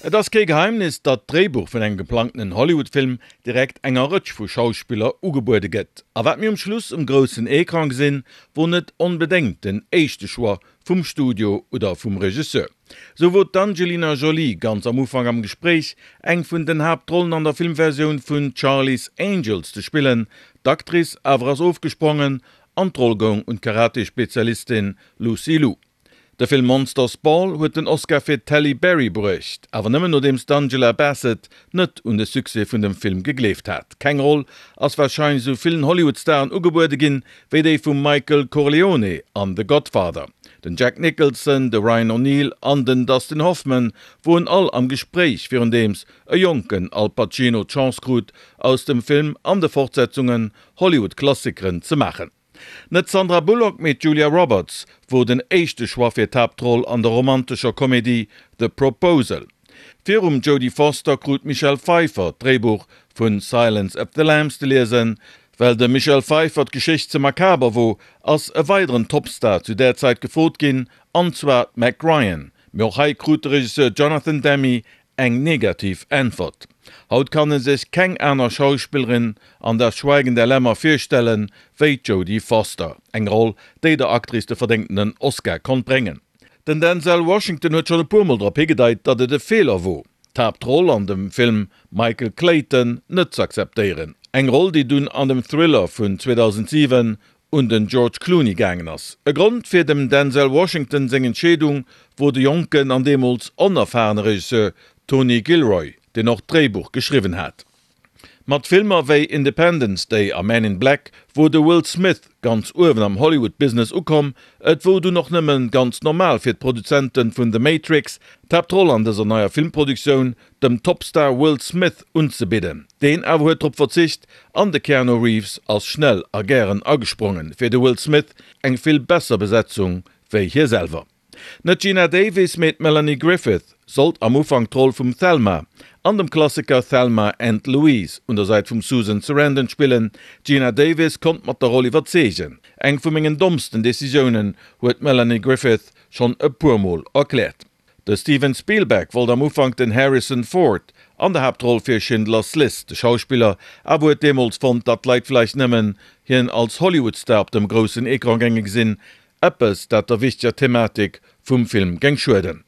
Et ass kee Geheimnis, datt d'Dréibuch vun engem geplangtenen Hollywood-Film direkt enger Rëtsch vu Schauspiller ugebuede gëtt. A wat mir um Schluss um groussen Ecran gesinn, wor net onbedéngt den éischte Choix vum Studio oder vum Regisseur. Sou wor d'Angelina Jolie ganz am Ufank am Gespréich, eng vun den Haaptrollen an der Filmversioun vun Charlie's Angels ze spillen. D'Actrice awer ass ofgesprongen an d'Roll goung un d'Karate-Spezialistin Lucy Liu. De Film Monsters Ball huet den Oscar fir d'Halle Berry bruecht, awer nëmmen nodeems d'Angela Bassett net un de Succès vun dem Film gegleeft hat. Keng Roll ass warscheinlech esou villen Hollywood-Staren ugebuede ginn, wéi déi vum Michael Corleone an The Godfather. Den Jack Nicholson, de Ryan O'Neal an den Dustin Hoffman woren all am Gespréich, virundeems e jonken Al Pacino d'Chance krut, aus dem Film an de Fortsetzungen Hollywood-Klassikeren ze maachen. Net d'Sandra Bullock, mee d'Julia Roberts wor den éischte Choix fir d'Haaptroll an der romantescher Komedie The Proposal. Virum Jodie Foster krut d'Michelle Pfeiffer d'Dréibuch vun Silence of the Lambs ze liesen. Well dem Michelle Pfeiffer d'Geschicht ze makaber wor, ass e weideren Topstar zu där Zäit gefrot ginn, an zwar d'Meg Ryan. Mee och hei krut de Regisseur Jonathan Demme Eng negativ Äntwert. Haut kann e sech keng aner Schauspillerin an Das Schweigen der Lämmer virstellen, wéi d'Jodie Foster. Eng Roll, déi der Actrice de verdéngtenen Oscar konnt bréngen. Den Denzel Washington huet schonn e puer Mol drop higedeit, datt et e Feeler wor, d'Haaptroll an dem Film Michael Clayton net z'akzeptéieren. Eng Roll, déi dunn an dem Thriller vun 2007 un den George Clooney gaangen ass. E Grond fir dem Denzel Washington seng Entscheedung wor de jonken an deemools onerfarene Regisseur Tony Gilroy, deen och d'Dréibuch geschriwwen hat. Mat Filmer wéi Independence Day a Men in Black wor de Will Smith ganz uewen am Hollywood-Business ukomm. Et wor dunn och nëmmen ganz normal fir d'Produzenten vun The Matrix, d'Haaptroll an dëser neier Filmproduktioun dem Topstar Will Smith unzebidden. Deen awer huet drop verzicht an de Keanu Reeves ass schnell a gären agesprongen. Fir de Will Smith eng vill besser Besetzung wéi hie selwer. Net d'Geena Davis, mee d'Melanie Griffith sollt am Ufank d'Roll vum Thelma an dem Klassiker Thelma and Louise un der Säit vum Susan Sarandon spillen. D'Geena Davis konnt mat der Roll iwwerzeegen. Eng vu mengen dommsten Decisiounen, huet d'Melanie Griffith schonn e puer Mol erkläert. De Steven Spielberg wollt am Ufank den Harrison Ford an der Haaptroll fir Schindler's List. De Schauspiller awer huet deemools fonnt, datt d'Leit vläicht nëmmen hien als Hollywood-Star op dem groussen Ecran géinge gesinn, eppes dat der wichteger Thematik vum Film géing schueden.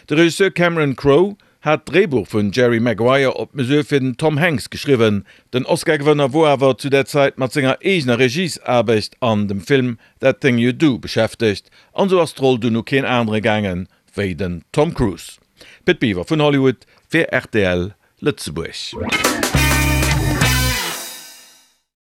De Regisseur Cameron Crowe hat d'Dréibuch vun Jerry Maguire op Mesure fir den Tom Hanks geschriwwen. Den Oscar-Gewënner wor awer zu där Zäit mat senger eegener Regiesaarbecht an dem Film That Thing You Do beschäftegt an sou ass d'Roll dunn u keen anere gaange wéi den Tom Cruise. Pit Biwer vun Hollywood fir rtl Lëtzebuerg.